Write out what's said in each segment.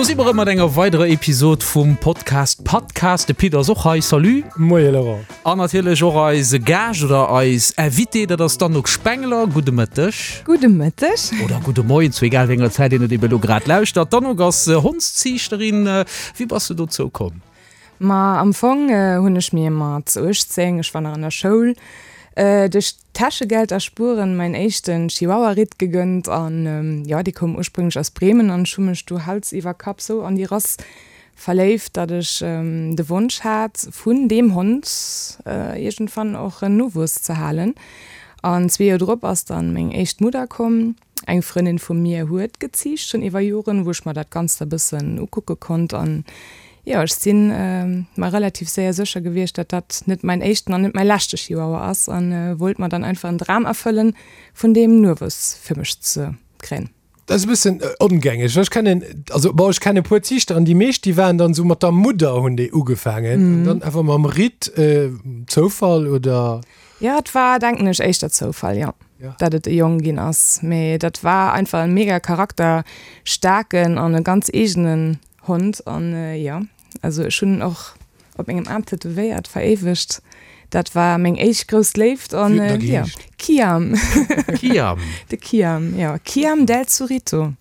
Do si mer erëm mat enger weiderer Episod vum Podcast Padcast. De Pit ass och hei. Salut. Moie Laurent. An natierlech och eise Gaascht oder eis Invitée, dat ass d'Anouk Spengler. Gudde Mëtteg. Gudde Mëtteg. Oder gudde Moien, zu egal wéi enger Zäit een et eben elo grad lauschtert. D'Anouk ass Hondsziichterin. Wéi bass de dozou komm? Ma am Fong hunn ech mir mat 18, ech war nach an der Schoul, duerch Täschegeld erspueren mäin éischten Chihuahua-Ritt gegënnt an jo, dee koum ursprünglech aus Bremen an ech hu mech du Hals iwwer Kapp sou an déi Rass verléift, datt ech de Wonsch hat vun deem Hond iergendwann och en Nowuess ze halen. An zwee Joer drop ass dann meng éischt Mudder komm. Eng Frëndin vu mir huet geziicht, schonn iwwer Joren, wou ech mer dat Ganzt e bëssen ukucke konnt. An jo, ech si mer relativ séier sécher gewiescht, datt dat net mäin éischten an net mäi leschte Chihuahua ass a wollt mer dann einfach en Dram erfëllen, vun deem Nuewuess fir mech ze kréien. Dat ass e bëssen ongängeg. Ech kennen, also bon, ech kennen e puer Ziichter an déi meescht, déi waren dann esou mat der Mudder hunn déi ugefaangen an dann awer mam Ritt, Zoufall oder? Jo, et war, denken ech, éischter Zoufall, jo, dat et e Jong ginn ass. Mee dat war einfach e mega charakterstaarken an e ganz eegenen Hond. An jo, also ech hunn en och op mengem Aarm tätowéiert, veréiwegt. Dat war meng éischt grouss Léift an jo, Kiam. Kiam. De Kiam, jo, Kiam del Zurito.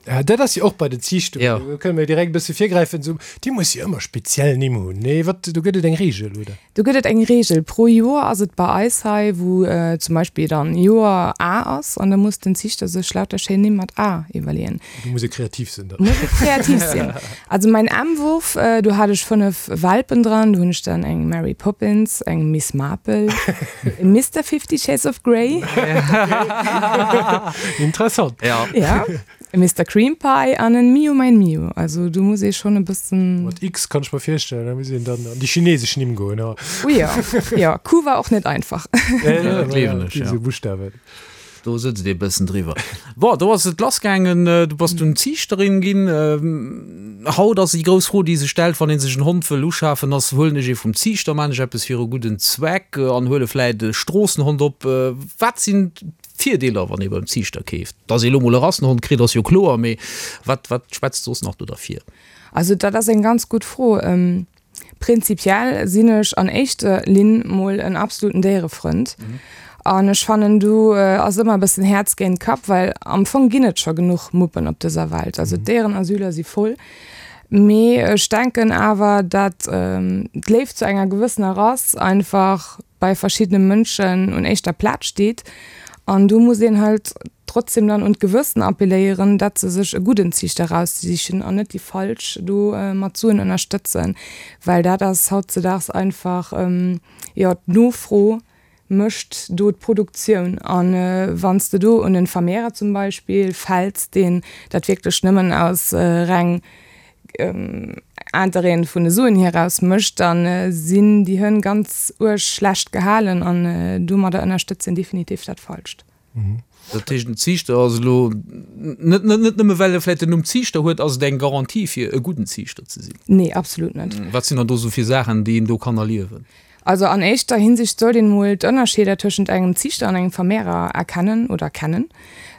Ja, dat ass jo och bei den Ziichtungen, ja. Do kënne mir direkt e bësse virgräifen, esou, déi muss jo ëmmer speziell Nimm hunn, nee? Wat, do gëtt et eng Reegel, oder? Do gëtt et eng Reegel. Pro Joer ass et bei eis hei, wou zum Beispill dann Joer A ass an da muss den Ziichter sech lauter schéin Nimm mat A iwwerleeën. Do muss ee kreativ sinn dann. Muss ee kreativ sinn. Also mäin M-Wurf, do hat ech 5 Welpen dran, do hunn ech dann eng Mary Poppins, eng Miss Marple, e Mister Fifty Shades of Grey. Interessant. Ja. Ja, e Mister Cream Pie an en Miu mein Miu. Also do muss ee schonn e bëssen. Mat X kann ech mer virstellen, da muss een dann an déi chinesesch Nimm goen, ja. Oh ja, ja, Q war och net einfach. Ja, ja, dat gleewen ech, ja. Buschtawen. Do sëtzt ee bëssen driwwer. Bon, do ass et lassgaangen, du bass dunn Ziichterin ginn. Haut ass déi grouss Fro, déi sech stellt, wann ee sech en Hond wëll uschafen, ass, Huelen ech ee vum Ziichter, maan ech eppes fir e gudden Zweck an huele vläit e Stroossenhond op? Wat sinn d'Virdeeler, wann ee beim Ziichter keeft? Dass ee lo mol e Rassenhond kritt, ass jo kloer, mee wat, wat schwätzt soss nach do derfir? Also dat ass eng ganz gutt Fro. Prinzipiell sinn ech an éischter Linn mol en absoluten Déierefrënd. An ech fannen do ass ëmmer e bëssen Häerz géint Kapp, well am Fong ginn et scho genuch Muppen op dëser Welt. Also d'Déierenasyler si voll. Mee ech denken awer, dat d'Léift zu enger gewëssener Rass einfach bei verschiddene Mënschen un éischter Plaz steet. An do muss een halt trotzdem dann un d'Gewëssen appelléieren, dat se sech e gudden Ziichter raussichen an net déi falsch do mat Suen ënnerstëtzen, well dat ass hautzedaags einfach, jo, d'Nofro mécht do d'Produktioun. A wann s de do un en Vermehrer zum Beispill fäls, deen dat wierklech nëmmen aus reng Interêten vun de Suen hier raus mécht, da sinn déi Hënn ganz uerg schlecht gehalen an domadder ënnerstëtzt een definitiv dat Falscht. Dat heescht, en Ziichter ass elo net, net nëmme well e vläicht den Numm Ziichter huet, ass et eng Garantie fir e gudden Ziichter ze sinn? Nee, absolut net. Wat sinn dann do esou fir Saachen, déi een do kann erliewen? Also an éischter Hinsicht sollt een mol d'Ënnerscheeder tëschent engem Ziichter an engem Vermehrer erkennen oder kennen.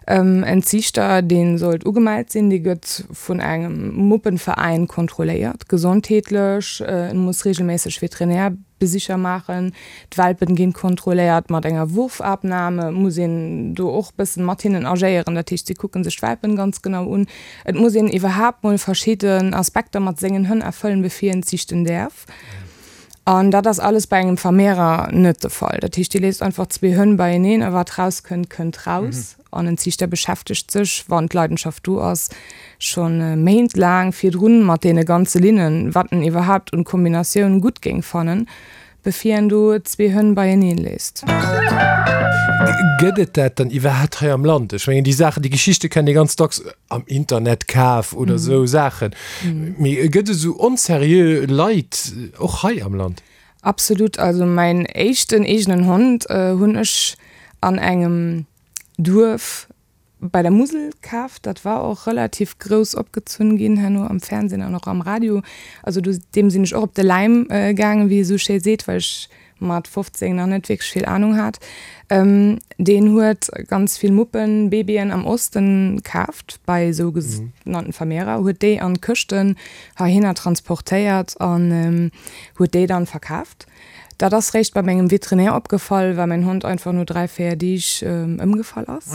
En Ziichter, dee sollt ugemellt sinn, dee gëtt vun engem Muppenveräin kontrolléiert, gesondheetlech, en muss regelméisseg Veterinär Besicher maachen, d'Welpen ginn kontrolléiert mat enger Wurfabnahme, muss een do och bëssen mat hinnen agéieren, dat heescht si kucken sech d'Welpen ganz genau un. Et muss een iwwerhaapt mol verschidden Aspekter mat sengen Hënn erfëllen bevir een ziichten däerf. An dat ass alles bei engem Vermehrer net de Fall. Dat heescht dir léisst einfach zwee Hënn beieneen a wat rauskënnt, kënnt raus. An en Ziichter beschäftegt sech, wann d'Leidenschaft do ass, scho Méint laang virdrun mat deene ganze Linnen, wat en iwwerhaapt un Kombinatioun gutt géing fannen, bevir en do zwee Hënn beieneen léisst. Gëtt et dat dann iwwerhaapt hei am Land? Ech mengen, déi Saachen, déi Geschichte kennt ee ganz dacks am Internet kaf oder esou Saachen. Mee gëtt et esou onserieux Leit och hei am Land? Absolut. Also mäin éischten eegenen Hond hunn ech an engem Duerf bei der Musel kaf. Dat war och relativ grouss opgezunn ginn herno am Fernsehen an och am Radio. Also do deem sinn ech och op de Läim gaangen, wéi ee sou schéi seet, well ech. mat 15 nach net wierklech vill Anung hat, deen huet ganz vill Muppen, Babyen am Osten kaaft bei sou genannten Vermehrer, huet déi an Këschten heihinner transportéiert an huet déi dann verkaaft. Dat ass réischt bei mengem Veterinär opgefall, well mäin Hond einfach no 3, 4 Deeg ëmgefall ass.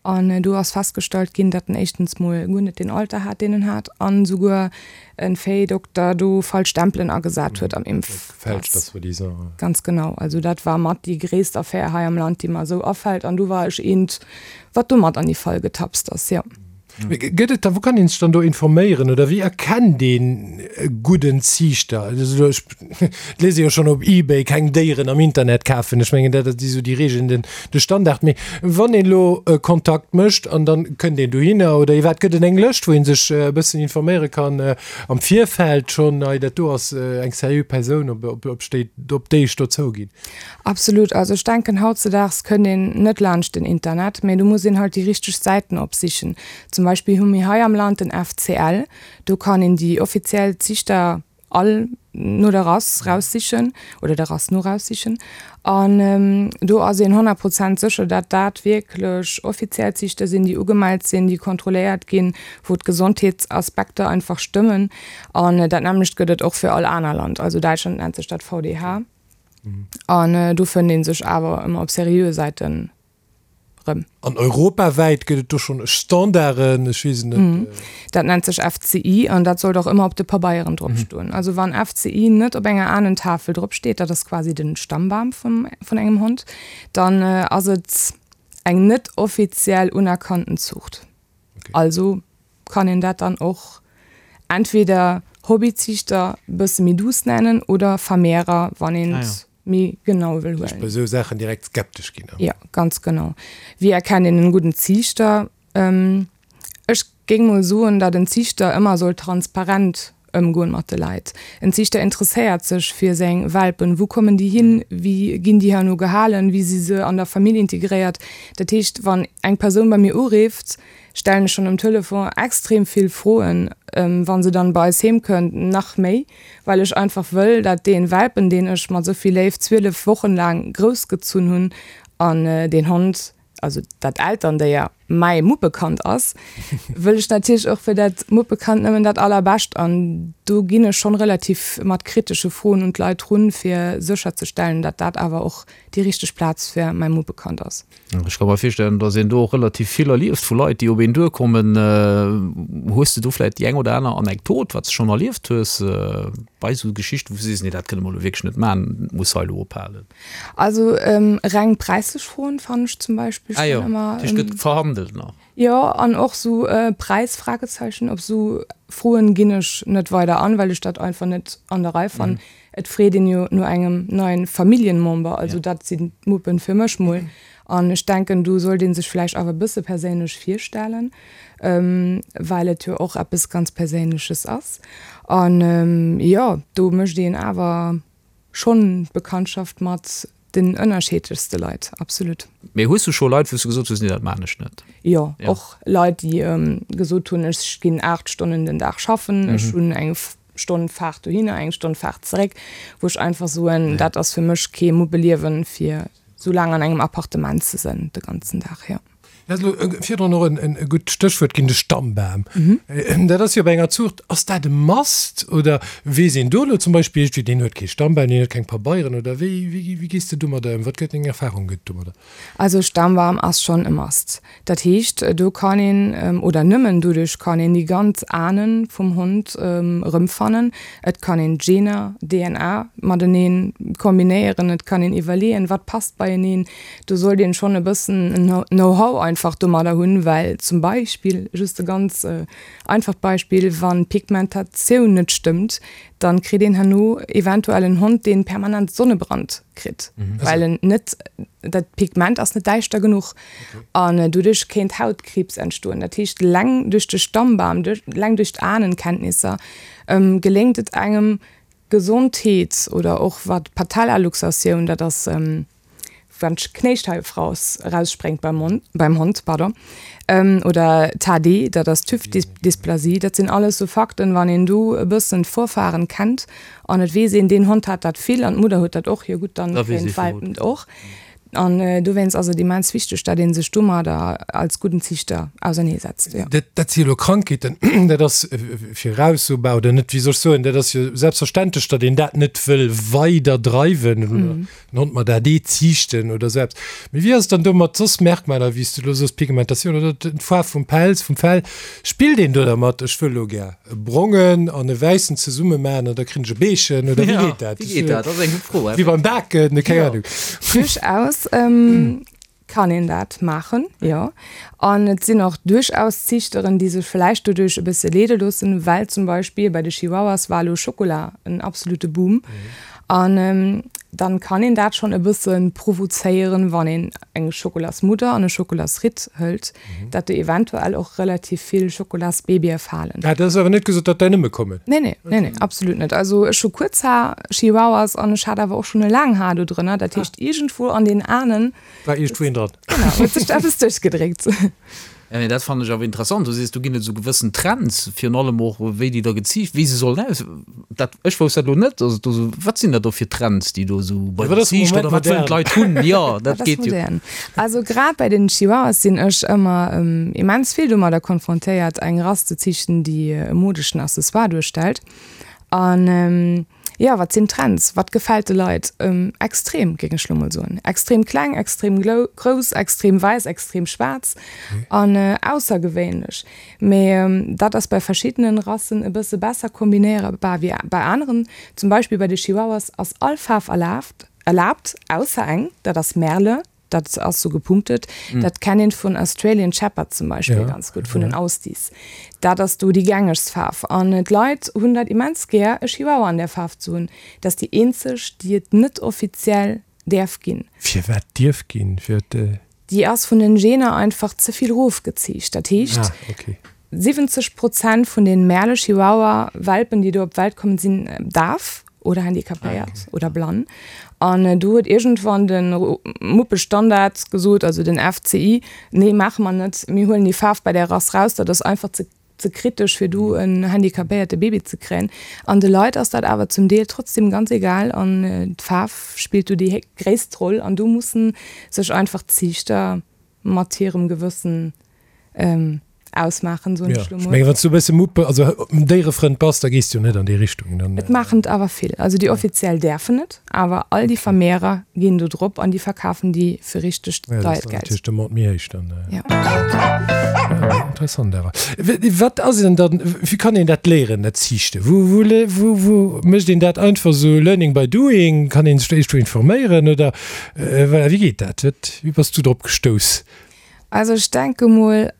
An do ass festgestallt ginn, datt en éischtens mol guer net deen Alter hat, deen en hat, an esouguer e Véidokter do falsch Stempelen agesat huet am Impfpass. Ganz genau. Also dat war mat déi gréisst Affär hei am Land, déi mer esou afält. An do war ech eent, wat do mat an déi Fal getapst ass, jo. Mee gëtt et da, wou kann een sech dann do informéieren oder wéi erkennt een e gudden Ziichter? Also ech lese jo schonn op Ebay, keng Déieren am Internet kafen, ech mengen dat si sou déi Regeln, den de Standard. Mee wann een elo Kontakt mécht an dann kënnt een dohinner oder iwwerhaapt gëtt et eng Lëscht, wou een sech e bëssen informéiere kann am Virfeld schonn, hei dat do ass eng seriö Persoun, op op op déi ech do zouginn. Absolut. Also ech denken hautzedaags kënnt een net laanscht den Internet, mä do muss een halt déi richteg Säiten opsichen. Zum Beispill hu mir hei am Land den FCL, do kann een déi offiziell Ziichter all no der Rass raussichen oder der Rass no raussichen an do ass een 100 Prozent sécher, dat dat wierklech offiziell Ziichter sinn, déi ugemellt sinn, déi kontrolléiert ginn, wou d'Gesondheetsaspekter einfach stëmmen. An dat nämmlecht gëtt et och fir all aner Land. Also Däitschland nennt sech dat VDH. An do fënnt ee sech awer ëmmer op seriöe Säiten rëm. An europawäit gëtt et do schonn Standarden? Ech weess et net. Dat nennt sech FCI an dat sollt och ëmmer op de Pabeieren drop stoen. Also wann FCI net op enger Ahnentafel drop steet, dat ass quasi den Stammbam vum vun engem Hond, dann ass et eng net offiziell unerkannten Zuucht. Also kann een dat dann och entweder Hobbyziichter bësse méi douce nennen oder Vermehrer, wann een et méi genau wëll huelen. Ech bei esou Saachen direkt skeptesch ginn. Jo, ganz genau. Wéi erkennt een en gudden Ziichter? Ech géing mol soen, datt en Ziichter ëmmer soll transparent ëmgoen mat de Leit. En Ziichter interesséiert sech fir seng Welpen, wou kommen déi hin, wéi ginn déi herno gehalen, wéi si se an der Famill integréiert. Dat heescht, wann eng Persoun bei mir urifft, stellen ech schonn um Telefon extrem vill Froen, wa se dann bei eis heem kënnt nach méi, well ech einfach wëll, dat dee Welpen, deen ech mat esou vill Léift 12 Wochen laang groussgezunn hunn an deen Hond, also dat Elterndéier mäi Muppekand ass, wëll ech natierlech och fir dat Muppekand nëmmen dat Allerbescht. An do ginn ech schonn relativ mat kritesche Froen un d'Leit run, fir sécherzestellen, datt dat awer och déi richteg Plaz fir mäi Muppekand ass. Ech ka mer virstellen, datt een do och relativ vill erlieft vu Leit, déi op een duerkommen. Hues de do vläicht déi eng oder aner Anekdot, wat s de schonn erlieft hues bei esou Geschichten, wou s de sees, nee dat kënne mer elo wierklech net maachen, dat muss hei elo ophalen? Also reng präislech Froen fannen ech zum Beispill ah, jo. ëmmer. Dat heescht, gëtt verhandelt nach? Jo, an och sou Präis Fragezeichen, op sou Froen ginn ech net weider an, well ech dat einfach net an der Rei fannen. Et freet een jo no engem neien Familljenmember, also dat sinn d'Muppen fir mech mol. An ech denken, do sollt ee sech vläicht awer e bësse perséinlech virstellen, well et jo och eppes ganz Perséinleches ass. An jo, do mécht een awer Schonn d'Bekanntschaft mat den ënnerscheedlechste Leit, absolut. Mee hues du scho Leit, wou s du gesot hues, nee dat maan ech net? Jo, och Leit déi gesot hunn, ech ginn 8 Stonnen den Dag schaffen, ech hunn eng Stonn Faart dohinner, eng Stonn Faart zeréck, wou ech einfach soen, dat ass fir mech kee Muppeliewen, fir sou laang an engem Appartement ze sënn de ganzen Dag, jo. Dat ass elo virdrun och e gutt Stéchwuert ginn, de Stammbam. Dat ass jo bei enger Zuucht, ass dat e Must oder weess een do elo zum Beispill iergendwéi, deen huet kee Stammbam, deen huet keng Pabeieren oder wéi, wéi gees de domadder ëm? Wat gëtt deng Erfahrung gëtt domadder? Also Stammbam ass schonn e Must. Dat heescht, do kann een, oder nëmmen doduerch kann een déi ganz Ahnen vum Hond erëmfannen. Et kann een d'Gener, DNA, matenee kombinéieren, et kann een iwwerleeën, wat passt beieneen. Do sollt een schonn e bëssen en Know-how einfach domadder hunn, well zum Beispill, just e ganz einfacht Beispill, wann d'Pigmentatioun net stëmmt, dann kritt een herno eventuell en Hond, deen permanent Sonnebrand kritt, well en net, dat Pigment ass net däischter genuch an doduerch kéint Hautkriibs entstoen. Dat heescht, eleng duerch de Stammbam, eleng duerch d'Ahnenkenntnisser geléngt et engem, Gesondheet oder och wat d'Patellaluxatioun, dat ass. wann d'Knéischeif raus, erausspréngt beim Mond, beim Hond, pardon, oder TAD, dat ass d'Hüftdysplasie, dat sinn alles sou Fakten, wann een do e bëssen d'Vorfahren kennt an et weess een, deen Hond hat dat vill an d'Mudder huet dat och, jo gutt, dann kréien d'Welpen et och. An dowéinst ass et immens wichteg, dat ee sech domadder als gudden Ziichter auserneesetzt, jo. Dat, dat si jo elo Krankheeten, dat ass viraussobar oder net, wéi soll ech soen, dat ass jo selbstverständlech, datt een dat net wëll weider dreiwen oder den Hond mat AD ziichten oder esou eppes. Mee wéi ass et dann do mat soss Merkmaler, wéi s du elo soos, Pigmentatioun oder d'Faarf vum Pelz, vum Fell? Spillt een do dermat, ech wëll elo gär e brongen an e wäissen zesumme maachen an da krin ech e Beechen oder wéi geet dat? Wéi geet dat? Dat ass eng gutt Fro. Wéi beim Baken, keng Ahnung. Duerchaus kann een dat maachen, jo. An et sinn och duerchaus Ziichteren, déi sech vläicht doduerch e bësse leede loossen, well zum Beispill bei de Chihuahuas war elo Schokola en absolute Boom. An dann kann een dat schonn e bësse provozéieren, wann een eng Schokolasmudder an e Schokolasritt hëlt, dat do eventuell och relativ vill Schokolasbabye falen. Ah, dat ass awer net gesot, datt där nëmme kommen? Nee, nee, nee, nee, absolut net. Also ech hu kuerz Haar, Chihuahuas, an ech hat awer och schonn e laang Haar do drënner. Dat heescht, iergendwou an den Ahnen. War iergendwou een dran. Genau, huet sech da eppes duerchgedréckt. Ja, mee dat fannen ech awer interessant. Du sees, do ginn et esou gewëssen Trends, virun allem och wéi déi da geziicht, wéi se sollen aus. Dat, ech wousst dat elo net, dass et do esou, wat sinn dat do fir Trends, déi do esou bei den Ziichter oder wat wëllen d'Leit hunn? Jo, dat Wat ass geet jo. modern? Also grad bei den Chihuahuas sinn ech ëmmer immens vill domadder konfrontéiert, eng Rass ze ziichten, déi e modeschen Accessoire duerstellt. An Jo, wat sinn Trends? Wat gefält de Leit? Extrem, géing ech lo mol soen. Extrem kleng, extrem grouss, extrem wäiss, extrem schwaarz an aussergewéinlech. Mee dat ass bei verschiddenen Rassen e bësse besser kombinéierbar wéi bei aneren. Zum Beispill bei de Chihuahuas ass all Faarf erlaabt, erlaabt, ausser eng, dat ass Merle. Dat ass sou gepunktet. Dat kennt een vun Australian Shepherd zum Beispill ganz gutt, vun den Aussies. Dat ass do déi gängegst Faarf. An d'Leit hunn dat immens gär, e Chihuahua an där Faarf ze hunn. Dat ass déi eenzeg, déi et net offiziell däerf ginn. Firwat dierf ginn? Firwat? Déi ass vun den Gener einfach ze vill rofgeziicht. Dat heescht, 70 Prozent vun den Merle Chihuahua Welpen déi do op d'Welt kommen sinn daf oder handicapéiert oder blann. An do huet iergendwann de Muppestandard gesot, also den FCI, nee maache mer net, mir huelen déi Faarf bei där Rass raus, dat ass einfach ze ze kritesch fir do en handicapéierte Baby ze kréien. An de Leit ass dat awer zum Deel trotzdem ganz egal an d'Faarf spillt do déi gréisst Roll an do mussen sech einfach d'Ziichter mat hirem Gewëssen ausmaachen, soen ech lo mol. Ech mengen, wann s du e bësse Muppe, also Déierefrënd bass, da gees du jo net an déi Richtung. Dann. Et maachen et awer vill. Also déi offiziell däerfen et, awer all déi Vermehrer ginn do drop an déi verkafen déi fir richteg deiert Geld. Ja, dat ass dann natierlech de Mord méi héich dann. Ja. Ja, interessant awer. Wat ass denn dann, wéi kann een dat léieren, dat Ziichten? Wou, wou, wou, wou mécht een dat einfach esou learning by doing? Kann een sech do iergendwou informéieren oder voilà, wéi geet dat? Wat, wéi bass du drop gestouss? Also ech denke mol,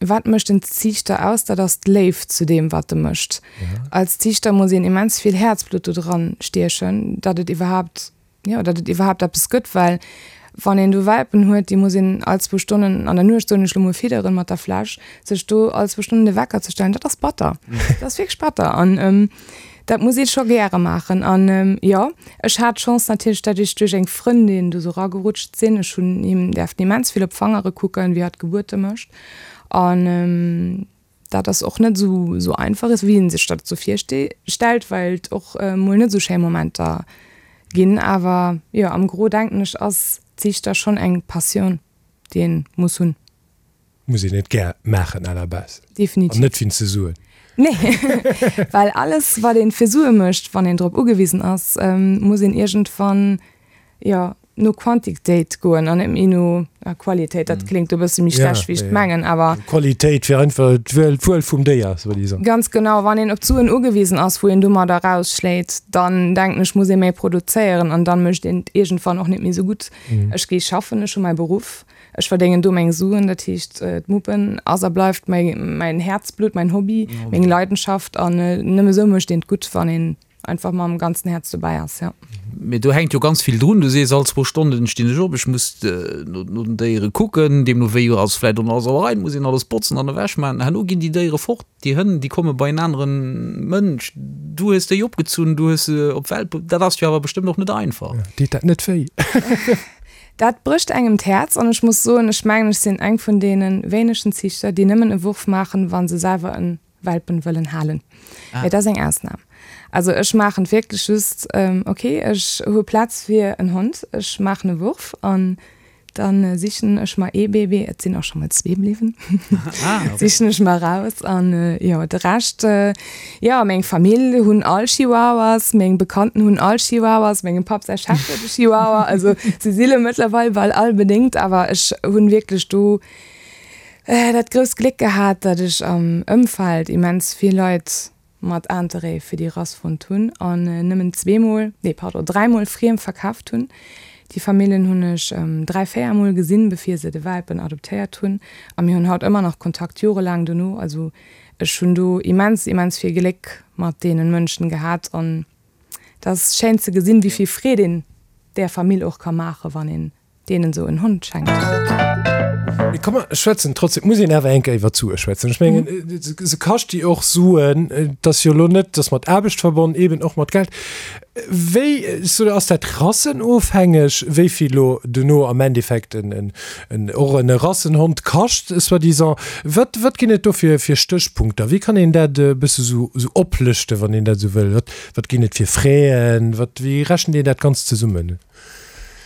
wat mécht en Ziichter aus, dat ass d'Léift zu deem wat e mécht. Als Ziichter muss een immens vill Häerzblutt do dran stiechen, datt et iwwerhaapt, jo, datt et iwwerhaapt eppes gëtt, well wann een do Welpen huet, déi muss een all zwou Stonnen an der Nuecht, soen ech lo mol, fidderen mat der Fläsch, sech do all zwou Stonnen de Wecker ze stellen, dat ass batter, dat ass wierklech batter an Dat muss ee scho gäre maachen. An jo, ech hat d'Chance natierlech, dat ech duerch eng Frëndin do sou ragerutscht sinn. Ech hunn him däerften immens vill op d'Fangere kucken, wéi hatt Gebuerte mécht. An dat ass och net esou esou einfach, wéi ee sech dat esou virstellt, well et och mol net esou schéi Momenter ginn. Awer jo, am Gros denken ech, ass Ziichter schonn eng Passioun, déi ee muss hunn. Muss een et gär maachen à la base. Definitiv. An net wéinst de Suen. Nee, well alles wat een fir Sue mécht, wann een drop ugewisen ass, muss een iergendwann, jo, no Quantitéit goen an net méi no Qualitéit. Dat kléngt e bësse méi schlecht wéi ech et mengen, awer. Qualitéit fir einfach d'Wuel vum Déier, soi-disant. Ganz genau. Wann een op d'Suen ugewisen ass, wou een domadder rausschléit, dann denken ech, muss ee méi produzéieren an dann mécht een et iergendwann och net méi esou gutt. Ech gi schaffen, ech hu mäi Beruff, Ech verdéngen do meng Suen, dat heescht d'Muppen ass a bleift mäin Häerzblutt, mäin Hobby, meng Leidenschaft an nëmme sou mécht een et gutt, wann een einfach mam ganzen Häerz dobäi ass, jo. Mee do hänkt jo ganz vill drun. Du sees, all zwou Stonnen stinn ech op, ech muss no den Déiere kucken, deemno wéi ass vläicht och nach alles a Rei, muss een alles botzen an ewech maachen. Herno ginn déi Déiere fort, déi Hënn, déi komme bei en anere Mënsch. Du hues déi opgezunn, du hues se op d'Welt bruet. Dat ass jo awer bestëmmt och net einfach. Deet dat net wéi? Dat brécht engem d'Häerz an ech muss soen, ech mengen ech sinn eng vun deene wéinegen Ziichter, déi nëmmen e Wurf maachen, wa se selwer en Welpen wëllen halen. Mee dat ass eng Ausnam. Also ech maachen et wierklech just, ok, ech hu Plaz fir en Hond, ech maachen e Wurf an Dann sichen ech mer ee Baby, et sinn och scho mol zwee bliwwen, sichen ech mer raus an jo de Rescht, jo meng Famill hunn all Chihuahuas, meng Bekannten hunn all Chihuahuas, mengem Papp säi Chef huet e Chihuahua, also se si lo mëttlerweil bal all bedéngt, awer ech hunn wierklech do dat grousst Gléck gehat, datt ech am Ëmfeld immens vill Leit mat Interêt fir déi Rass fonnt hunn an nëmmen zweemol, nee pardon, dräimol friem verkaaft hunn. Déi Famillen hunn ech dräi, véiermol gesinn, bevir se de Welpen adoptéiert hunn a mir hunn haut ëmmer nach Kontakt, jorelaang dono. Also ech hunn do immens, immens vill Gléck mat deenen Mënschen gehat an et ass schéin ze gesinn, wéi vill Freed een där Famill och ka maachen, wann een deenen esou en Hond schenkt. Mee komm mer schwätzen trotzdem, et muss een awer eng Kéier iwwer d'Sue schwätzen. Ech mengen, se kascht déi och Suen, et ass jo elo net, et ass mat Aarbecht verbonnen, eeben och mat Geld. Wéi, so ass dat rassenofhängeg, wéi vill elo dono am Endeffekt en, en, och en Rassenhond kascht, soi-disant? Wat, wat ginn et do fir, fir Stéchpunkter? Wéi kann een dat e bësse sou, sou oplëschten, wann een dat esou wëll? Wat, wat ginn et fir Fräen? Wat, wéi rechent een dat Ganzt zesummen?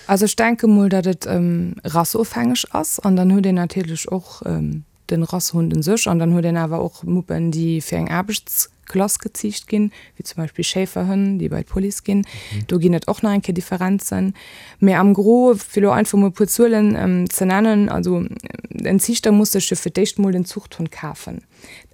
Also ech denke mol, datt et rassofhängeg ass an dann huet een natierlech och de Rassehund un sech an dann huet een awer och Muppen, déi fir eng Aarbechtsklass geziicht ginn, wéi zum Beispill Schäferhënn, déi bei d'Police ginn. Do ginn et och nach eng Kéier Differenzen. Mee am Gros, fir elo einfach mol e puer Zuelen ze nennen, also en Ziichter muss sech jo fir d'éischt mol den Zuchthond kafen.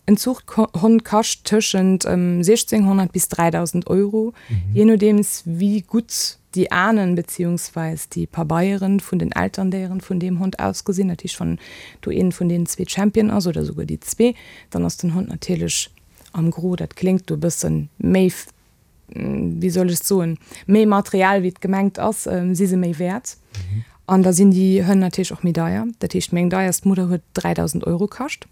En Zuchthond kascht tëschent 1.600 bis 3.000 Euro, jee nodeems wéi gutt déi Ahnen beziehungsweis déi Pabeieren vun den Elterndéieren vun deem Hond ausgesinn. Dat heescht, wann do een vun deenen zwee Champion ass oder esouguer déi zwee, dann ass den Hond natierlech am Gros, dat kléngt do e bësse méi, wéi soll ech soen, méi materiell wéi et gemengt ass, si se méi wäert. An da sinn déi Hënn natierlech och méi deier. Dat heescht, meng deierst Mudder huet 3.000 Euro kascht.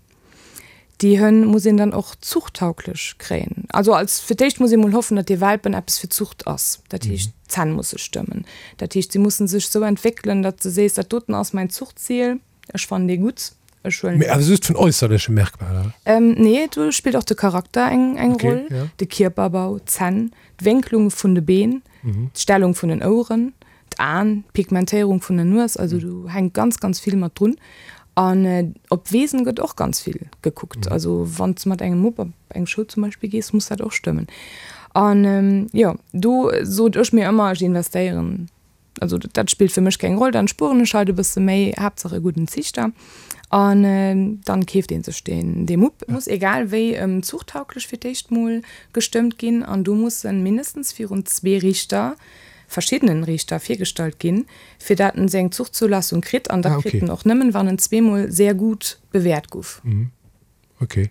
Déi Hënn muss een dann och zuchttauglech kréien. Also als fir d'éischt muss ee mol hoffen, datt dee Welpen eppes fir d'Zucht ass. Dat heescht, d'Zänn musse stëmmen. Dat heescht, si musse sech sou entwéckelen, datt de sees, dat doten ass mäin Zuchtzil, ech fannen dee gutt, ech huelen Mee awer just vun äusserleche Merkmaler? Nee, do spillt och de Charakter eng eng Roll, de Kierperbau, d'Zänn, d'Wénklung vun de Been, d'Stellung vun den Oueren. D'Aen, d'Pigmentéierung vun der Nues, also do hänkt ganz, ganz vill mat drun. An op d'Wesen gëtt och ganz vill gekuckt. Also wann s de mat engem Mupp op eng Show zum Beispill gees, muss dat och stëmmen. An jo, do sot ech mir ëmmer, ech investéieren, also dat spillt fir mech keng Roll, dann spueren ech halt e bësse méi, Haaptsaach e gudden Ziichter. An dann keeft ee sech deen, dee Mupp. Muss egal wéi zuchtauglech fir d'éischt mol gestëmmt ginn an do mussen mindestens virun zwee Riichter verschiddenen Riichter virgestallt ginn, fir dat en seng Zuchtzulassung kritt, an dat kritt en och nëmmen, wann en zweemol sehr gut bewäert guff. Ok.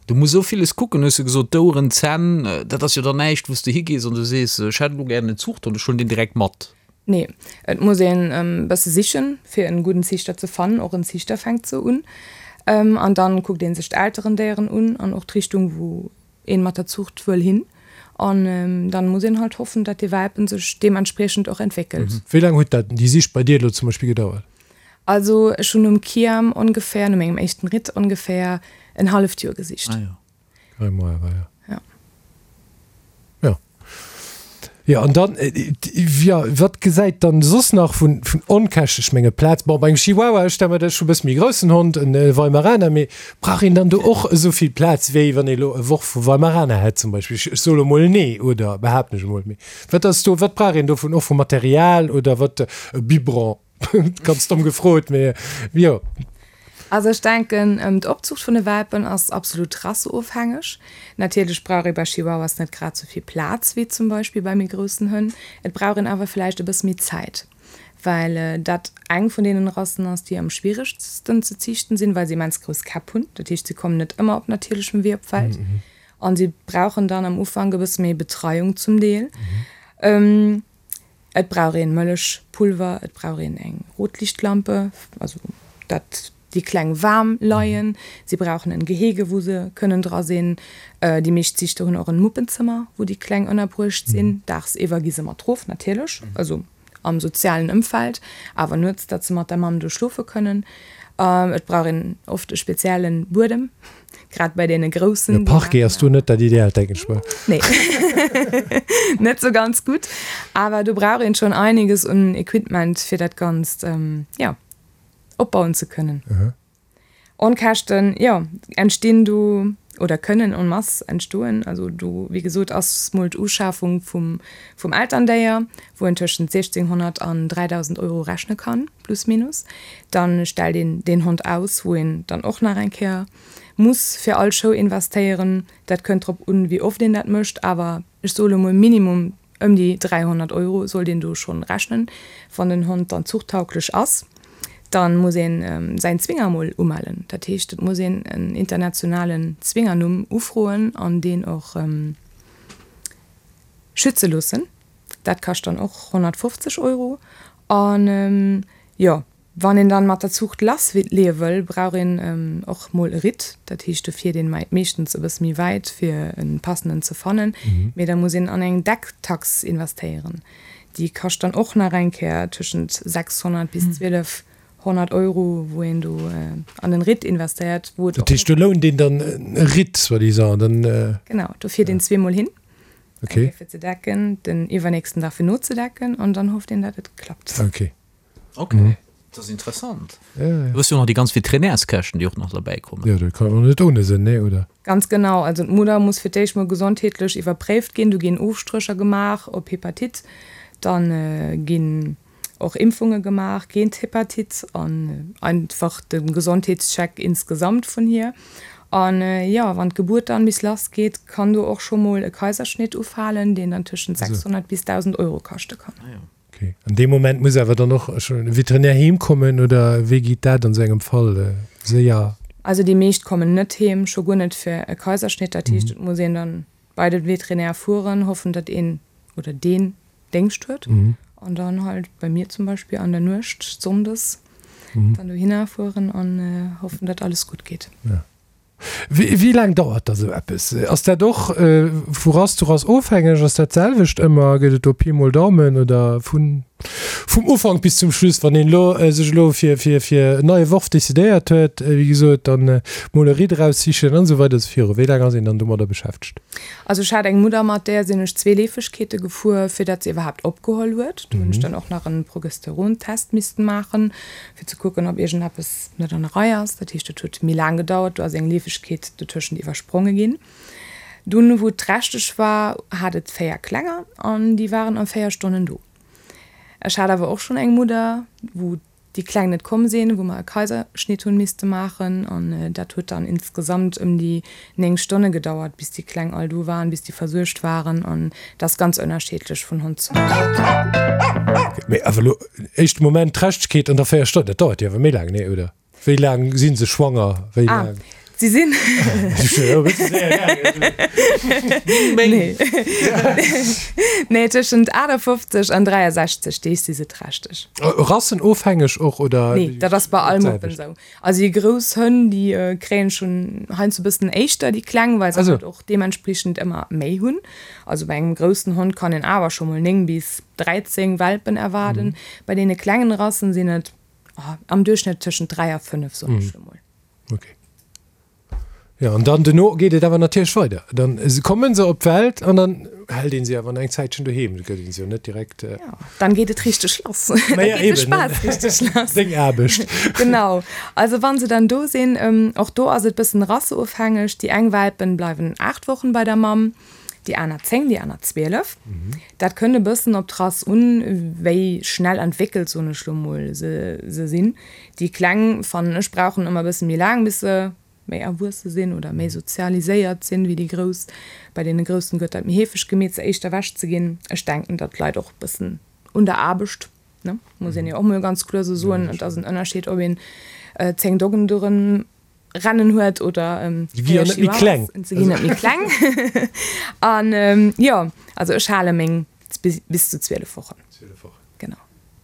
Du muss esou villes kucken, hues de gesot, d'Oueren, d'Zänn, dat ass jo dann näischt, wou s de higees an du sees, ech hätt elo gären en Zuchthond, ech huelen deen direkt mat. Nee, et muss een e bësse sichen, fir en gudden Ziichter ze fannen. Och en Ziichter fänkt sou un. An dann kuckt een sech d'Elterendéieren un an och d'Richtung, wou een mat der Zucht wëll hin an dann muss een halt hoffen dat dee Welpen sech deementspriechend och entwéckelt. Wéi laang huet dat, déi Sich bei dir elo zum Beispill gedauert? Also ech hunn nom Kiam ongeféier, no mengem éischten Ritt ongeféier en halleft Joer gesicht. Ah jo. Dräi Mois awer, jo. Ja. Jo. Jo, an dann, jo, wat gesäit dann soss nach vun, vun Onkäschten? Ech menge Plaz, bon, bei engem Chihuahua, ech stelle mer dat, ech hu e bësse méi groussen Hond, en Weimaraner, mee brauch een dann do och esou vill Plaz, wéi wann ee elo e Worf vu Weimaraner hätt zum Beispill? Ech, ech soe lo mol nee, oder behaapten ech emol, mee wat ass do, wat brauch een dovun och vu Material oder wat, e Biberon? Ganz domm gefrot, mee jo. Also ech denken, d'Opzucht vun de Welpen ass absolut rasseofhängeg. Natierlech brauch ee bei Chihuahuas net grad sou vill Plaz wéi zum Beispill bei méi groussen Hënn. Et brauch een awer vläicht e bësse méi Zäit, well dat eng vun deenen Rassen ass, déi am schwieregsten ze ziichten sinn, well se immens grouss Käpp hunn. Dat heescht, se kommen net ëmmer op natierlechem Wee op d'Welt a si brauchen dann am Ufank e bësse méi Betreiung zum Deel. Et brauch een Mëllechpulver, et brauch een eng Rotlichtlampe, also dat déi Kleng waarm leien. Si brauchen en Gehege wou se kënnen dra sinn. Déi meescht Ziichter hunn och en Muppenzëmmer wou déi Kleng ënnerbruecht sinn. Daagsiwwer gi se mat rof natierlech, also. am sozialen Ëmfeld, awer nuets, datt se mat der Mamm do schlofe kënnen. Et brauch een oft e speziellen Buedem, grad bei deene groussen. E Parquet ass do net dat Ideaalt, denken ech mer. Nee, net sou ganz gutt. Awer do brauch een schonn einiges un Equipment, fir dat Ganzt, jo, opbauen ze kënnen. Onkäschten, jo, entstinn do oder kënnen en masse entstoen. Also do, wéi gesot, ass mol d'Uschafung vum, vum Elterndéier, wou een tëschent 1.600 an 3.000 Euro rechne kann, plus minus. Dann stellt een deen Hond aus, wou een dann och nach eng Kéier muss fir all Show investéieren. Dat kënnt drop un, wéi oft een dat mécht, awer ech soe lo mol Minimum Ëm déi 300 Euro sollt een do schonn rechnen. Wann den Hond dann zuchttauglech ass, dann muss een säin Zwinger mol umellen. Dat heescht, et muss een en internationalen Zwingernumm ufroen an deen och schütze loossen. Dat kascht dann och 150 Euro. An jo, Wann een dann mat der Zuucht lass leeë wëll, brauch een och mol e Ritt. Dat heescht, do fiert een meeschtens e bësse méi wäit fir en passenden ze fannen. Mee da muss een an eng Decktax investéieren. Déi kascht dann och nach eng Kéier tëschent 600 bis 1200 Euro, wou een do an den Ritt investéiert. Wou et och. Dat heescht, do lount een dann e Ritt soi-disant, dann. Genau, do fiert een zweemol hin. Eng Kéier fir ze decken, den iwwernächsten Dag fir nozedecken an dann hofft een, dat et klappt. Okay. Ok, dat ass interessant. Du hues jo och nach déi ganz Veterinärskäschten, déi och nach derbäi kommen. Jo, dat kann och net ohne sinn, nee, oder? Ganz genau. Also d'Mudder muss fir d'éischt mol gesondheetlech iwwerpréift ginn. Do ginn Ofstrécher gemaach op Hepatite. Da ginn och Impfunge gemaach géint Hepatite an einfach de Gesondheetscheck insgesamt vun hir. An jo, wann d'Gebuert dann bis lass geet, kann do och scho mol e Kaiserschnitt ufalen, deen dann tëschent 600 bis 1.000 Euro kaschte kann. Ok. An deem Moment muss awer dann och schonn e Veterinär heem kommen, oder wéi geet dat an esou engem Fall séier? Also déi meescht kommen net heem, scho guer net fir e Kaiserschnitt. Dat heescht, et muss een dann bei de Veterinär fueren, hoffen, datt een oder deen Déngscht huet an dann halt bei mir zum Beispill an der Nuecht sonndes dann dohinner fueren an hoffen, datt alles gutt geet. Wéi laang dauert da sou eppes? Ass dat och vu Rass zu Rass ofhängeg? Ass dat d'selwecht ëmmer? Gëtt et do Pi mol Daumen oder vun vum Ufank bis zum Schluss? Wann een elo sech elo fir fir fir en neie Worf decidéiert huet, wéi gesot, dann mol e Ritt eraussichen an esou weider esou viru, wéi laang ass een dann domadder beschäftegt? Also ech hat eng Mudder, mat där sinn ech zwee Leefegkeete gefuer, fir dat se iwwerhaapt opgeholl huet. Do hunn ech dann och nach en Progesterontest missten maachen, fir ze kucken, ob iergendeppes net an der Rei ass. Dat heescht, dat huet méi laang gedauert, do ass eng Leefegkeet dotëschent iwwerspronge ginn. Dunn, wou et trächteg war, hat et 4 Klenger an déi waren a 4 Stonnen do. Ech hat awer och schonn eng Mudder, wou déi Kleng net komm sinn, wou mer e Kaiserschnitt hunn misste maachen an dat huet dann insgesamt ëm déi 9 Stonne gedauert, bis déi Kleng all do waren, bis déi versuergt waren an dat ass ganz ënnerschiedlech vun Hond zu Hond. Mee awer elo éischte Moment Trächtegkeet an da 4 Stonnen, dat dauert jo awer méi laang, nee oder? Wéi laang si se schwanger? Wéi laang? Ah, si sinn. Nee. Nee, tëschent 58 an 63 Deeg si se trächteg. Rassenofhängeg och oder? Nee, dat ass bei all Muppen esou. Also déi grouss Hënn, déi kréien schonn heiansdo e bëssen éischter déi kleng, well se halt och deementspriechend ëmmer méi hunn. Also bei engem groussen Hond kann een awer scho mol 9 bis 13 Welpen erwaarden. Bei deene klengen Rassen sinn et am Duerchschnëtt tëschent 3 a 5, soen ech lo mol. Okay. Jo, an dann duerno geet et awer natierlech weider. Dann kommen se op d'Welt an dann hält een se awer nach eng Zäitchen doheem. Da gëtt een se jo net direkt. Jo, dann geet et richteg lass. Da geet de Spaass richteg lass. Deng Aarbecht. Genau. Also wann se dann do sinn, och do ass et bëssen rasseofhängeg. Déi eng Welpen bleiwen 8 Wochen bei der Mamm, déi aner 10, déi aner 12. Dat kënnt e bëssen op d'Rass un, wéi schnell entwéckelt, soen ech lo mol, se se sinn. Déi Kleng, fannen ech, brauchen ëmmer e bësse méi laang, bis se méi erwuesse sinn oder méi sozialiséiert sinn wéi déi Grouss. Bei deene Groussen gëtt dat méi heefeg gemeet, se éischter ewech ze ginn. Ech denken, dat leit och e bëssen un der Aarbecht, ne, muss een jo och mol ganz kloer esou soen. Et ass en Ënnerscheed, ob een 10 Doggen doran rennen huet oder 4 Chihuahuas. Se ginn net méi kleng. An jo, also ech hale meng bis zu 12 Wochen. Genau.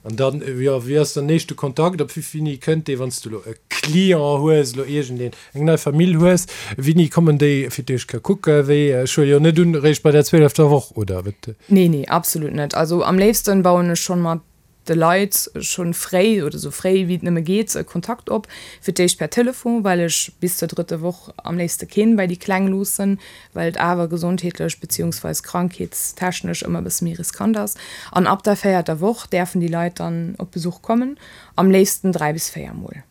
An dann, jo, wéi ass dann éischte Kontakt? Op wéini kënnt dee, wann s du elo e Client hues, elo iergendeen, eng nei Famill hues, wéini kommen déi fir d'éischt ka kucken? Wéi, ech huele jo net un, eréischt bei der zwielefter Woch, oder wat? Nee, nee, absolut net. Also am léifsten bauen ech schonn mat. de Leit schonn fréi oder sou fréi wéi et nëmme geet Kontakt op. Fir d'éischt per Telefon, well ech bis zur drëtte Woch am léifste keen bei déi Kleng loossen, well et awer gesondheetlech beziehungsweis krankheetstechnesch ëmmer e bësse méi riskant ass. An ab der véierter Woch däerfen déi Leit dann op Besuch kommen, am léifsten 3 bis 4 Mol.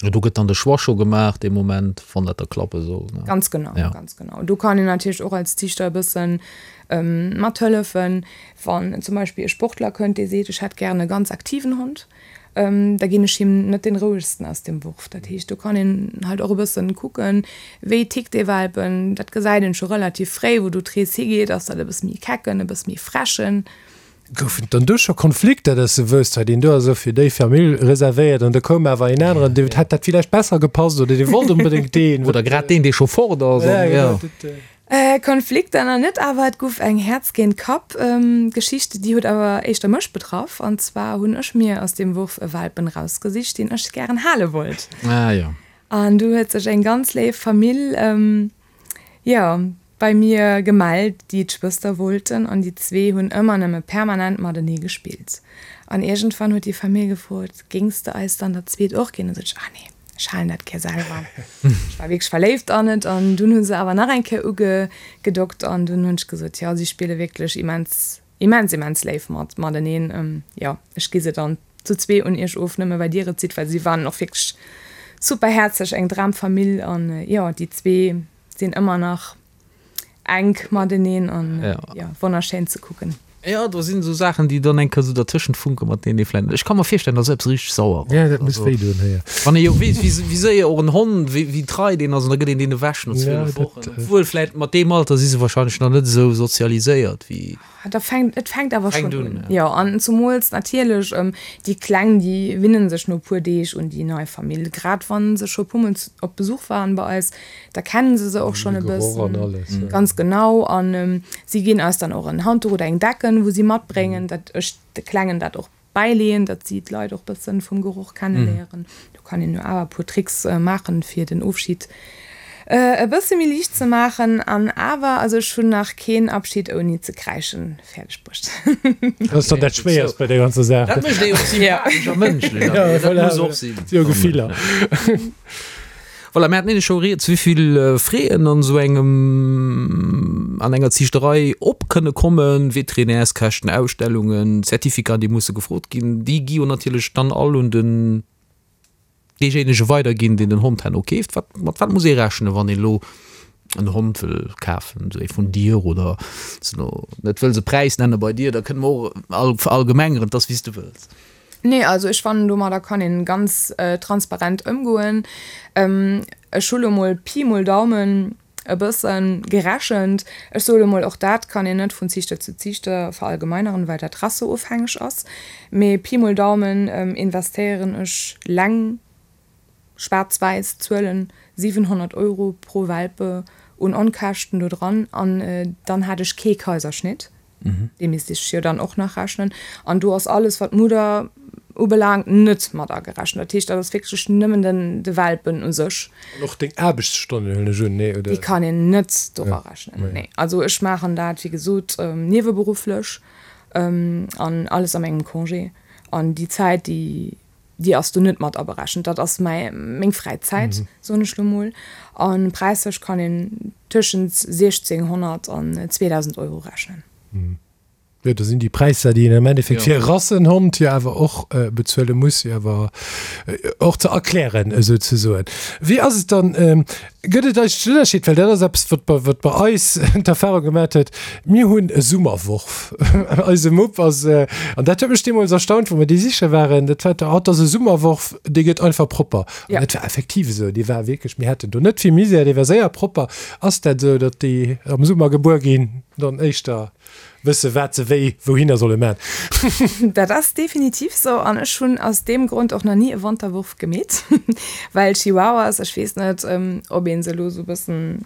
Do gëtt dann de Choix scho gemaach dee Moment, wann dat da klappe soll, ne? Ganz genau, ja. ganz genau. Do kann een natierlech och als Ziichter e bëssen mathëllefen. Wann zum Beispill e Sportler kënnt, dee seet, ech hätt gären e ganz aktiven Hond, da ginn ech him net dee rouegsten aus dem Wurf. Dat heescht, do kann een halt och e bëssen kucken, wéi tickt dee Welpen. Dat gesäit een scho relativ fréi, wou do d'Rees higeet. Ass dat e bësse méi kecken, e bësse méi frechen? Goufen et dann do scho Konflikter, dass de wousst, hei deen do ass elo fir déi Famill reservéiert an da koum awer een aneren, deem hätt dat villäicht besser gepasst oder dee wollt onbedéngt deen? Oder grad deen, dee scho fort ass. Ja, genau. Dat. Konflikter nach net, awer et guff eng Häerz géint Kapp Geschicht, déi huet awer éischter mech betraff. An zwar hunn ech mir aus deem Wurf e Welpen rausgesicht, deen ech gären hale wollt. Ah jo. An du huet sech eng ganz léif Famill, jo, bei mir gemellt, déi d'Schwëster wollten. An déi zwee hunn ëmmer nëmme permanent matenee gespillt. An iergendwann huet déi Famill gefrot, Géings de eis dann dat zweet och ginn? An du sot ech, Ah nee. Ech halen dat gär selwer. Ech war wierklech verléift an et an dunn hu se awer nach eng Kéier ugedockt an dunn hunn ech gesot, jo, si spille wierklech immens, immens, immens léif mat mateneen. Jo, ech gi se dann zu zwee un iech of, nëmme well dir et sidd, well si waren och wierklech super häerzlech, eng Dramfamill an jo, déi zwee sinn ëmmer nach enk mateneen an jo, wonnerschéin ze kucken. Jo, do sinn esou Saachen, déi dann eng Kéier esou dertëschent funken, mat deenen ee vläicht, ech ka mer virstellen, dass eppes richteg sauer ass. Ja, dat muss wéi doen, jo. Wann ee jo weess, wéi, wéi séier och en Hond, wéi, wéi trei deen ass, an da gëtt een deen ewech no 12 Wochen. Obwuel vläicht mat deem Alter si se wahrscheinlech nach net esou sozialiséiert wéi. Da fänkt, et fänkt awer schonn un. Jo, an zumools natierlech déi Kleng, déi winnen sech no e puer Deeg un déi nei Famill. Grad wa se scho e puermol op Besuch waren bei eis, da kennen se se och schonn e bëssen. Ganz genau. An si ginn eis dann och en Handduch oder eng Decken, wou si matbréngen, datt ech de Klengen dat och bäileeën, datt si d'Leit och bëssen vum Geroch kenneléieren. Do kann een jo awer e puer Tricks maachen, fir den Ofschid e bësse méi liicht ze maachen. An awer, also ech hunn nach keen Abschid ouni ze kräischen fäerdeg bruecht. Dat ass dann dat Schwéierst bei der ganzer Saach. Dat mécht ee jo och sympathesch a mënschlech. Ja, voilà. Dat muss och sinn. Jo, Gefiller. Voilà, mir haten nämlech scho rieds, wéivill Fräen an esou engem, an enger Ziichterei op kënne kommen, Veterinärskäschten, Ausstellungen, Certificaten, déi musse gefrot ginn. Déi gi jo natierlech dann all un den deejéinege weiderginn, deen den Hond herno keeft. Wat, mat wat muss ee rechnen, wann een elo en Hond wëll kafen, esou ee vun dir oder s de elo net wëlls e Präis nenne bei dir, da kënne mer och verallgemengeren, 't ass wéi s de wëlls. Nee, also ech fannen domadder kann een ganz transparent ëmgoen. Ech hu lo mol Pi mol Daumen e bëssen gerechent. Ech soe lo mol, och dat kann een net vun Ziichter zu Ziichter verallgemeineren, well dat rasseofhängeg ass. Mee Pi mol Daumen investéieren ech leng schwaarz-wäiss Zuelen, 700 Euro pro Welpe un Onkäschten do dran an dann hat ech kee Kaiserschnitt. Dee misst ech jo dann och nach rechnen. An do ass alles, wat d'Mudder ubelaangt, net mat agerechent. Dat heescht, dat ass wierklech nëmmen den, de Welpen u sech. An och deng Aarbechtsstonnen, huelen ech un, nee, oder? Déi kann een net dora rechnen, nee. Also ech maachen dat, wéi gesot, nieweberufflech an alles a mengem Congé. An déi Zäit, déi, déi ass do net mat aberechent. Dat ass mäi, meng Fräizäit, soen ech lo mol. A präislech kann een tëschent 1.600 an 2.000 Euro rechnen. Jo, do sinn déi Präisser, déi een am Endeffekt fir e Rassenhond jo awer och bezuele muss, jo awer och ze erklären esouzesoen. Wéi ass et dann, gëtt et eigentlech en Ënnerscheed, well dat ass eppes, wat bei, wat bei eis d'Erfahrung gemaat huet, mir hunn e Summerworf. Eise Mupp ass, an dat huet mech deemools erstaunt, wou mer déi siche waren, dat war, oh, dat ass e Summerworf, dee gëtt einfach propper. An dat war effektiv esou, dee war wierklech, mir haten do net vill Misär, dee war séier propper. Ass dat esou, datt déi am Summer gebuer ginn, dann éischter wësse wat se wéi wouhinner solle man? Dat ass definitiv sou an ech hunn aus deem Grond och nach ni e Wanterwurf gemeet, well Chihuahuas, ech weess net, ob ee se elo sou e bëssen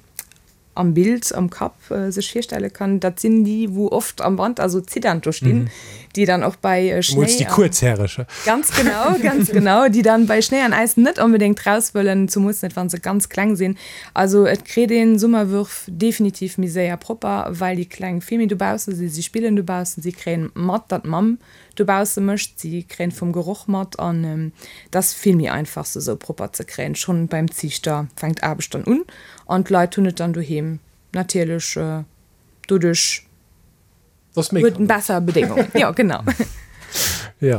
am Bild am Kapp sech virstelle kann, dat sinn déi wou oft am Wanter sou ziddernd do stinn. Déi dann och bei Schnéi. Déi Kuerzhäreg. Ganz genau, ganz genau, déi dann bei Schnéi an Äis net onbedéngt raus wëllen, zumools net wa se ganz kleng sinn. Also et kritt een Summerwürf definitiv méi séier propper, well déi Kleng vill méi dobausse sinn. Si spillen dobaussen, si kréien mat, datt d'Mamm dobausse mécht, si kréien vum Geroch mat an et ass vill méi einfach se esou propper ze kréien. Schonn beim Ziichter fänkt d'Aarbecht dann un an d'Leit hunn et dann doheem natierlech doduerch huet en besser Bedéngungen. Jo genau. Jo.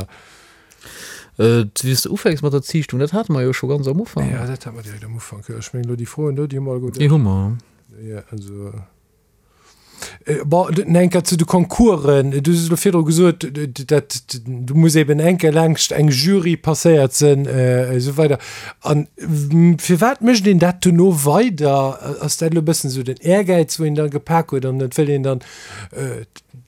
Wéi s de ufänks mat der Ziichtung, dat hate mer jo scho ganz am Ufank. Jo, dat hate mer direkt am Ufank. Jo, ech mengen elo déi Froen do, déi hu mer alleguer. Déi hu mer. Jo, also. Bon, eng Kéier zu de Concoursen. Du hues elo virdru gesot, dat do muss eben eng Kéier laangscht eng Jury passéiert sinn, esou weider. An firwat mécht een dat dono weider? Ass dat elo e bëssen esou den Ehrgäiz, wou een da gepak huet an et wëll een dann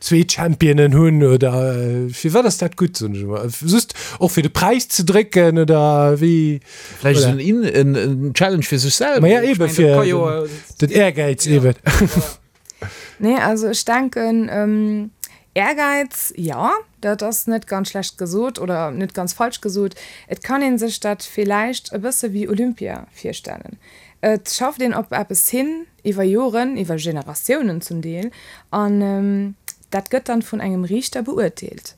zwee Championen hunn oder firwat ass dat gutt, soen ech emol? Just och fir de Präis ze drécken oder wéi? Vläicht esou en, en, en Challenge fir sech selwer. Ma ja, eben, fir den Ehrgäiz eben. Nee, also ech denken, Ehrgäiz, jo, dat ass net ganz schlecht gesot oder net ganz falsch gesot. Et kann ee sech dat villäicht e bësse wéi Olympia virstellen. Et schafft een op eppes hin, iwwer Joren, iwwer Generatiounen zum Deel, an dat gëtt dann vun engem Riichter beurteelt.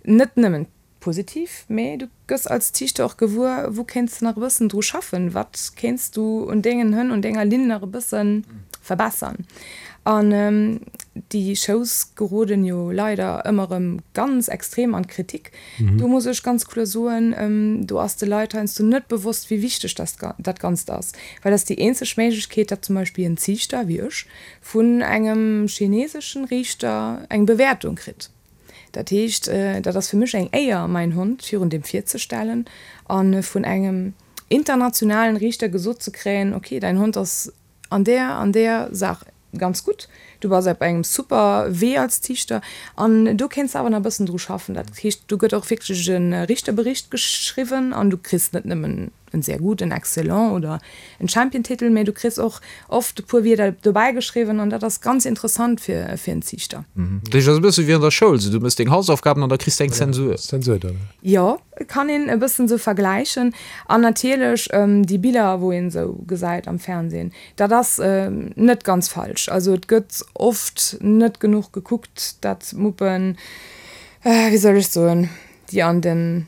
Net nëmmen Positiv, mee du gëss als Ziichter och gewuer, wou kéints de nach e bëssen dru schaffen, wat kéints du un dengen Hënn, un denger Linn nach e bësse verbessern. An déi Shows geroden jo leider ëmmer erëm ganz extrem an d'Kritik. Do muss ech ganz kloer soen, do ass de Leit heiansdo net bewosst, wéi wichteg dat Ganzt ass, well dat ass déi eenzeg Méiglechkeet, datt zum Beispill en Ziichter, wéi ech, vun engem chineseschen Riichter eng Bewäertung kritt. Dat heescht, dat ass fir mech eng Éier, mäin Hond virun deem virzestellen a vun engem internationalen Riichter gesot ze kréien, ok, däin Hond ass an där an där Saach ganz gutt, du bass op engem super Wee als Ziichter an do kéints de awer nach e bëssen dru schaffen. Dat heescht, do gëtt och wierklech e Richterbericht geschriwwen an du kriss net nëmmen en sehr gut, en excellent oder en Championtitel, mee du kriss och oft e puer Wierder dobäi geschriwwen an dat ass ganz interessant fir fir en Ziichter. Dat heescht, et ass e bësse wéi an der Schoul, sou du méchs deng Hausaufgaben an da kriss de eng Zensur. Zensur dann. Jo, kann een e bëssen sou vergläichen. An natierlech déi Biller, wou een sou gesäit am Fernsehen, dat ass net ganz falsch. Also et gëtt oft net genuch gekuckt, dat Muppen, wéi soll ech soen, déi an den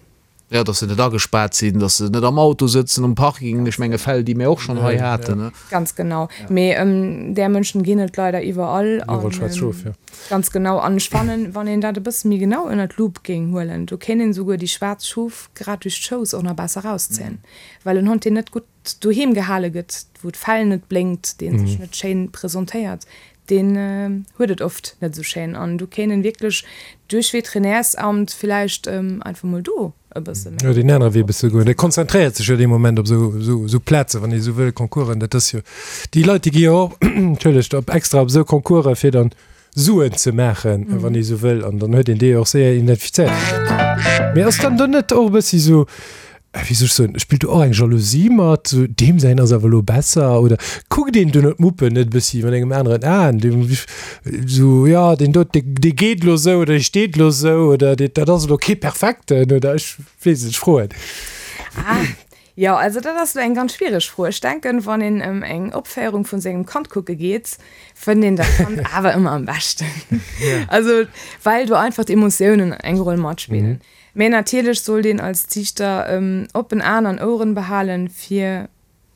Jo, dass se net agespaart sinn, dass se net am Auto sëtzen um Parking, ech menge Fäll, déi mir och schonn hei haten. Ganz genau. Mee där Mënschen ginn et leider iwwerall. Iwwerall schwaarz Schof, jo. Ganz genau. An ech fannen, wann een dat e bësse méi genau ënner d'Lupe géing huelen, do kéint een esouguer déi schwaarz Schof grad duerch d'Schous och nach besser erauszéien. Well en Hond, deen net gutt doheem gehale gëtt, wou d'Fell net blénkt, dee sech net schéin presentéiert, deen huet et oft net esou schéin an do kéint en wierklech duerch Veterinärsamt villäicht einfach mol do e bësse méi. Jo, deen anere Wee e bësse goen. Dee konzentréiert sech jo dee Moment op esou, esou, esou Plazen, wann ee esou wëll, Concoursen. Dat ass jo, déi Leit, déi gi jo och, entschëllegt, op extra op esou Concoursen, fir dann Suen ze maachen, wann ee esou wëll. An dann huet een déi och séier identifizéiert. Mee ass dann do net och e bëssi esou, wéi soll ech soen, spillt do och eng Jalousie mat, sou deem säin ass awer elo besser oder kuckt een duerno d'Muppen net e bëssi mat engem aneren Aen, deem sou jo deen do dee dee geet elo sou oder dee steet elo sou oder dee dat ass elo kee perfekten oder ech weess et, ech froen. Ah, jo, also dat ass elo eng ganz schwiereg Fro. Ech denken, wann een ëm eng Opféierung vun sengem Kand kucke geet, fënnt een dat Kand awer ëmmer am beschten. Also well do einfach d'Emotiounen eng Roll matspillen. Mä natierlech sollt een als Ziichter oppen Aen an Oueren behalen, fir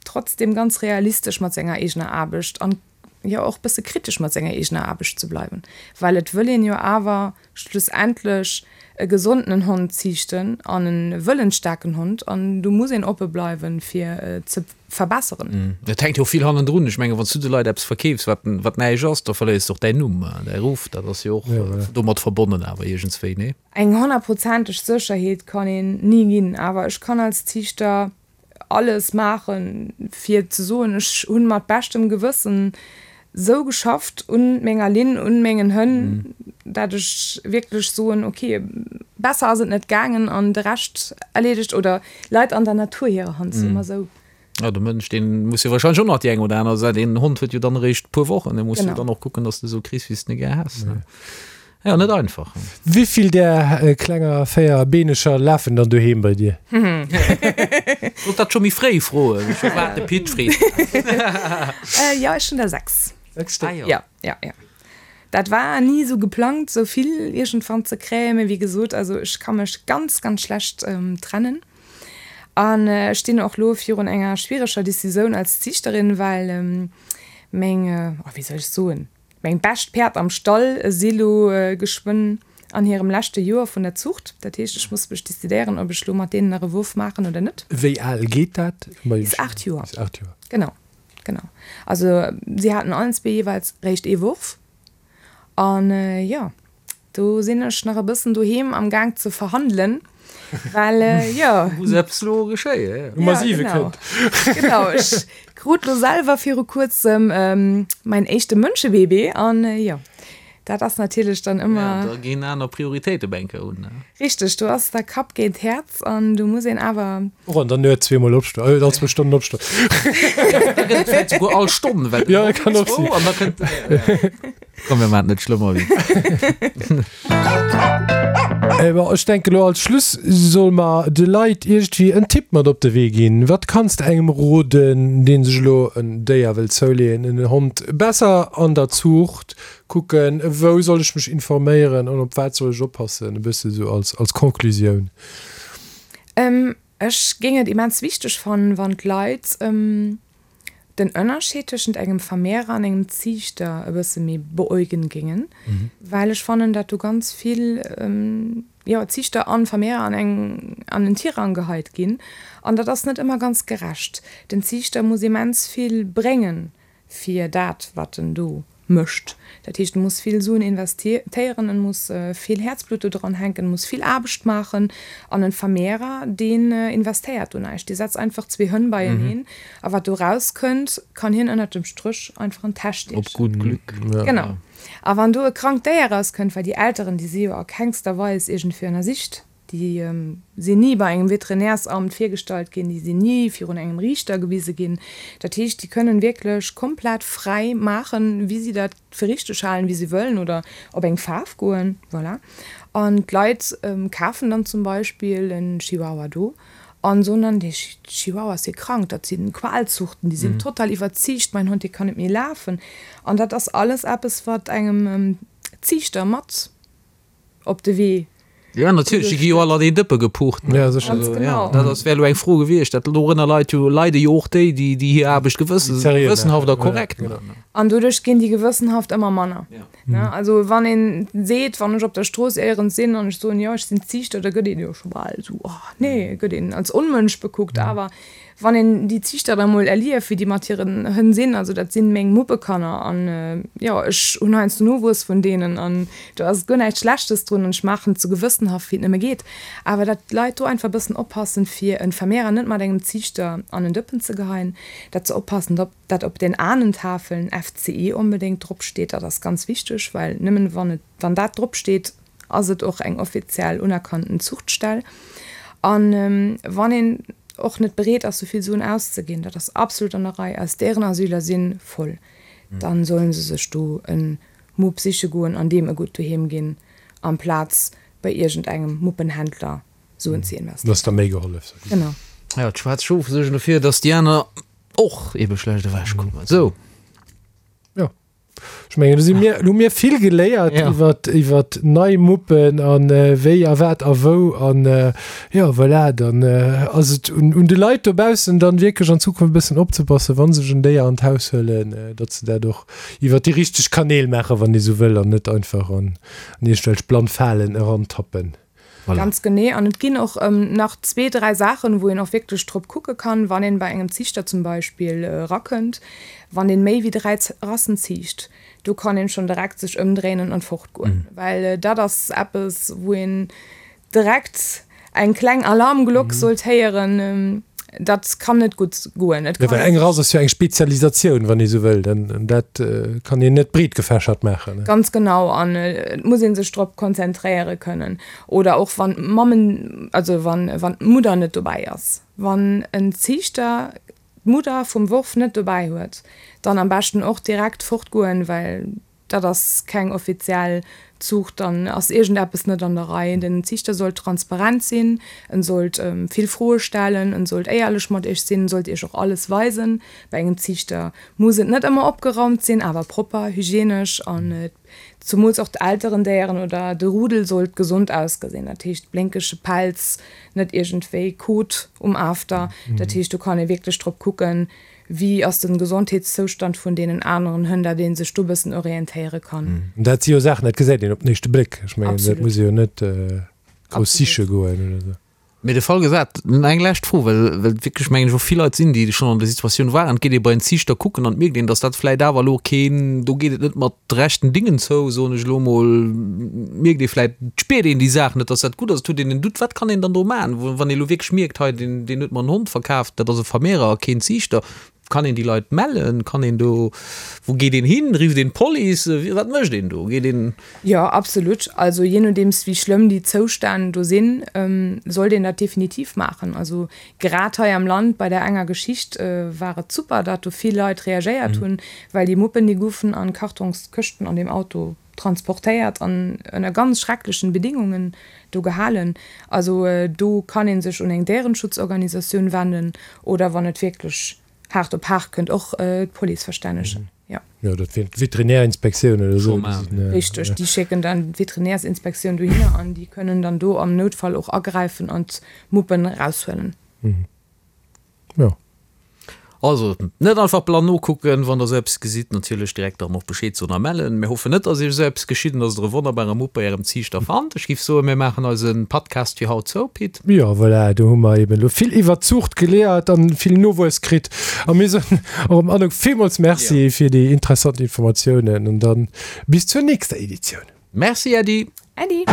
trotzdem ganz realistesch mat senger eegener Aarbecht an jo och bësse kritesch mat senger eegener Aarbecht ze bleiwen, well et wëll een jo awer schlussendlech e gesondenen Hond ziichten an e wëllensstaarken Hond an do muss een oppe bleiwen, fir ze verbesseren. Et hänkt jo och vill hannendrun. Ech mengen, wann s du de Leit eppes verkeefs, wat, wat näischt ass, da verléiers de och däin Numm, däi Ruff. Dat ass jo och domat verbonnen awer iergendswéi, nee? Eng honnertprozenteg Sécherheet kann een ni ginn, awer ech kann als Ziichter alles maachen, fir ze soen, ech hunn mat beschtem Gewëssen sou geschafft un menger Linn, un mengen Hënn, dat ech wierklech soen, ok, besser ass et net gaangen an de Rescht erleedegt oder leit an der Natur hirer Hand, soe mer sou. Jo, de Mënsch, dee muss jo wahrscheinlech och nach déi eng oder aner Säit, een Hond huet jo dann eréischt e puer Wochen, dee muss jo dann och kucken, dass de esou kriss, wéi s de e gär häss. Jo, net einfach. Wéivill där klenger véierbeeneger lafen dann doheem bei dir? Sollt dat scho méi fréi froen. Ech hu waart de Pit freet. Jo, ech hunn der 6. 6 Stéck? Ah jo. Jo, jo, jo. Dat war ni esou geplangt, esou vill iergendwann ze kréien, mee wéi gesot, also ech ka mech ganz, ganz schlecht trennen. An ech stinn och lo virun enger schwiereger Decisioun als Ziichterin, well meng, oh wéi soll ech soen, meng bescht Päerd am Stall si lo geschwënn an hirem leschte Joer vun der Zuucht. Dat heescht, ech muss mech decidéieren, ob ech lo mat deenen nach e Wurf maachen oder net. Wéi al geet dat? Bis 8 Joer. Bis 8 Joer. Genau, genau. Also si haten allen zwee jeeweils réischt ee Wurf. An jo, do sinn ech nach e bëssen doheem am Gaang ze verhandelen, well jo. Muss eppes elo geschéien, jo. Nummer 7 kënnt. Genau, ech krut lo selwer viru kuerzem mäin éischte Mënschebaby an jo, dat ass natierlech dann ëmmer. Ja, da ginn aner Prioritéite op eng Kéier un, ne? Richteg, do ass da Kapp géint Häerz an do muss een awer. Och an der Nuet zweemol opstoen, all zwou Stonnen opstoen. Da gëtt et vläicht souguer all Stonn, well Ja, kann och sinn. An da kënnt. Komm, mir maachen et net schlëmmer wéi. Bon, ech denke lo als Schluss solle mer de Leit iergendwéi en Tipp mat op de Wee ginn. Wat kanns de engem roden, dee sech elo en Déier wëll zouleeën, en Hond, besser an der Zuucht kucken, wou soll ech mech informéieren an op wat soll ech oppassen, e bësse sou als, als Conclusioun? Ech géing et immens wichteg fannen, wann d'Leit den Ënnerscheed tëschent engem Vermehrer an engem Ziichter e bësse méi beäugen géingen, well ech fannen, dat do ganz vill, jo, Ziichter an Vermehrer an eng, an en Tirang geheit ginn an dat ass net ëmmer ganz gerecht. Den Ziichter muss immens vill bréngen fir dat wat en do mécht. Dat heescht, en muss vill Suen investéieren, en muss vill Häerzblutt do dran hänken, en muss vill Aarbecht maachen. An en Vermehrer, deen investéiert do näischt, dee setzt einfach zwee Hënn beieneen a wat do rauskënnt, kann hien ënnert dem Stréch einfach an d'Täsch stiechen. Op gutt Glück. Genau. A wann do e krankt Déier rauskënnt, well déi Elteren, déi si jo a kengster Weis iergendwéi ënnersicht, Déi sinn ni bei engem Veterinärsamt virgestallt ginn, déi sinn ni virun engem Riichter gewise ginn. Dat heescht, déi kënnen wierklech komplett fräi maachen, wéi si dat fir richteg halen, wéi si wëllen oder op eng Faarf goen. Voilà. An d'Leit kafen dann zum Beispill en Chihuahua do an soen dann, dee Chihuahua ass jo krank, dat sinn Qualzuchten, déi sinn total iwwerziicht, mäin Hond, dee kann net méi lafen. An dat ass alles eppes, wat engem Ziichter mat op de Wee. Jo, natierlech, déi gi jo all an een Dëppe gepucht. Ja, sécher. Ganz genau. Dat ass, wär elo eng Fro gewiescht. Dat dorënner leit jo, leide jo och déi, déi, déi hir Aarbecht gewëssen, Seriö gewëssenhaft a maachen. korrekt Ja, genau. maachen. An doduerch ginn déi gewëssenhaft ëmmer manner. Ja. Ne? Also wann een seet, wann ech op der Strooss éierens sinn an ech soen, jo, ech sinn Ziichter, da gëtt een jo scho bal esou, oh nee, gëtt een als Onmënsch bekuckt. Awer Wann een déi Ziichter da mol erlieft, wéi déi mat hiren Hënn sinn, also dat sinn meng Muppekanner an jo, ech hunn heiansdo Nowuess vun deenen an do ass guer näischt Schlechtes drun an ech maachen et sou gewëssenhaft wéi et nëmme geet. Awer dat d'Leit do einfach e bëssen oppassen, fir en Vermehrer net mat engem Ziichter an en Dëppen ze geheien, dat se oppassen, dat op den Ahnentafeln FCE onbedéngt drop steet, dat ass ganz wichteg, well nëmmen wann et, wann dat drop steet, ass et och eng offiziell unerkannten Zuchtstell. An wann een och net bereet ass, souvill Suen auszeginn, dat ass absolut an der Rei, eis Déierenasyler si voll, dann sollen se sech do e Mupp siche goen an deem e gutt Doheem ginn, amplaz bei iergendengem Muppenhändler Suen ze investéieren. Ass da méi gehollef. Genau. Jo, d'schwaarz Schof suergen dofir, datt déi aner och ebe schlecht ewechkommen. Sou. Jo. Ech mengen, do si mir, hu mir vill geléiert ja. iwwer, iwwer nei Muppen an äh, wéi a wat a wou an äh, ja voilà, dann äh, ass et un, un de Leit dobaussen dann wierklech an Zukunft e bëssen opzepassen, wann sech en Déier an d'Haus huelen, äh, datt se dat och iwwer déi richteg Kanäl maachen, wann ee sou wëll an net einfach an, an iergendwelch blann Falen erantappen. Voilà. Ganz genee. An et ginn och nach zwee, dräi Saachen, wou een och wierklech drop kucke kann, wann een bei engem Ziichter zum Beispill erakënnt, wann deen méi wéi dräi Rassen ziicht, do kann een schonn direkt sech ëmdréinen an fortgoen. Well dat ass eppes, wou een direkt eng kleng Alarmglock sollt héieren. Dat kann net gutt goen. Et Ja, well eng Rass ass jo eng Spezialisatioun, wann ee sou wëll. An dat kann een net breetgefächert maachen. Ganz genau. An et muss ee sech drop konzentréiere kënnen. Oder och wann d'Mammen, also wann d'Mudder net dobäi ass. Wann en Ziichter d'Mudder vum Worf net dobäi huet, dann am beschten och direkt fortgoen, well Dat ass keng offiziell. Zuucht, dann ass iergendeppes net an der Rei. Den Ziichter sollt transparent sinn, en sollt vill Froe stellen, en sollt éierlech mat iech sinn, en sollt iech och alles weisen. Bei engem Ziichter muss et net ëmmer opgeraumt sinn, awer propper, hygienesch an zumools och d'Elterendéieren oder de Rudel sollt gesond ausgesinn. Dat heescht blénkege Pelz, net iergendwéi Kot um After. Dat heescht do kann ee wierklech drop kucken, Wéi ass den Gesondheetszoustand vun deenen aneren Hënn, dat een sech do bëssen orientéiere kann. Dat si jo Saachen, dat gesäit een op den éischte Bléck. Ech mengen, dat muss ee jo net grouss siche goen oder esou. Mee de Fall gesat, eng lescht Fro, well well wierklech mengen ech och vill Leit sinn, déi schonn an der Situatioun waren, et geet ee bei en Ziichter kucken an et mierkt een, datt dat vläit awer elo keen, do geet et net mat rechten Dingen zou, soen ech elo emol, mierkt ee vläit, et spiert een déi Saach net, datt dat gutt ass, et huet een en Doute, wat kann een dann do maachen, wann ee elo wierklech mierkt, hei deen deen huet mer en Hond verkaaft, dat ass e Vermehrer a keen Ziichter, kann een déi Leit mellen, kann een do, wou geet een hin, rifft een d'Police, wat mécht een do, geet een. Jo, absolut. Also jee nodeems wéi schlëmm déi Zoustänn do sinn, sollt een dat definitiv maachen. Also grad hei am Land bei där enger Geschicht war et super, datt do vill Leit reagéiert hunn, well déi Muppen déi goufen an Kartongskëschten an deem Auto transportéiert an ënner ganz schrecklechen Bedingungen do gehalen. Also do kann ee sech un eng Déierenschutzorganisatioun wenden oder wann et wierklech haart op haart kënnt och d'Police verstännegen. Jo. Jo, dat wier d'Veterinärinspektioun oder esou. Richteg, déi schécken dann d'Veterinärsinspektioun dohinner an déi kënnen dann do am Noutfall och agräifen an d'Muppen eraushuelen. Jo. Also, net einfach blann nokucken, wann der esou eppes gesitt, natierlech direkt dann och Bescheed soen a mellen. Mir hoffen net, dass iech esou eppes geschitt an dass der e wonnerbare Mupp bei ärem Ziichter fannt. Ech giff soen, mir maachen eise Podcast fir haut zou, Pit. Jo, voilà, do hu mer eben elo vill iwwert d'Zuucht geliert an vill Nowuess kritt. A mir soen och dem Anouk villmools Merci fir déi interessant Informatiounen an dann bis zur nächster Editioun. Merci Äddi. Äddi.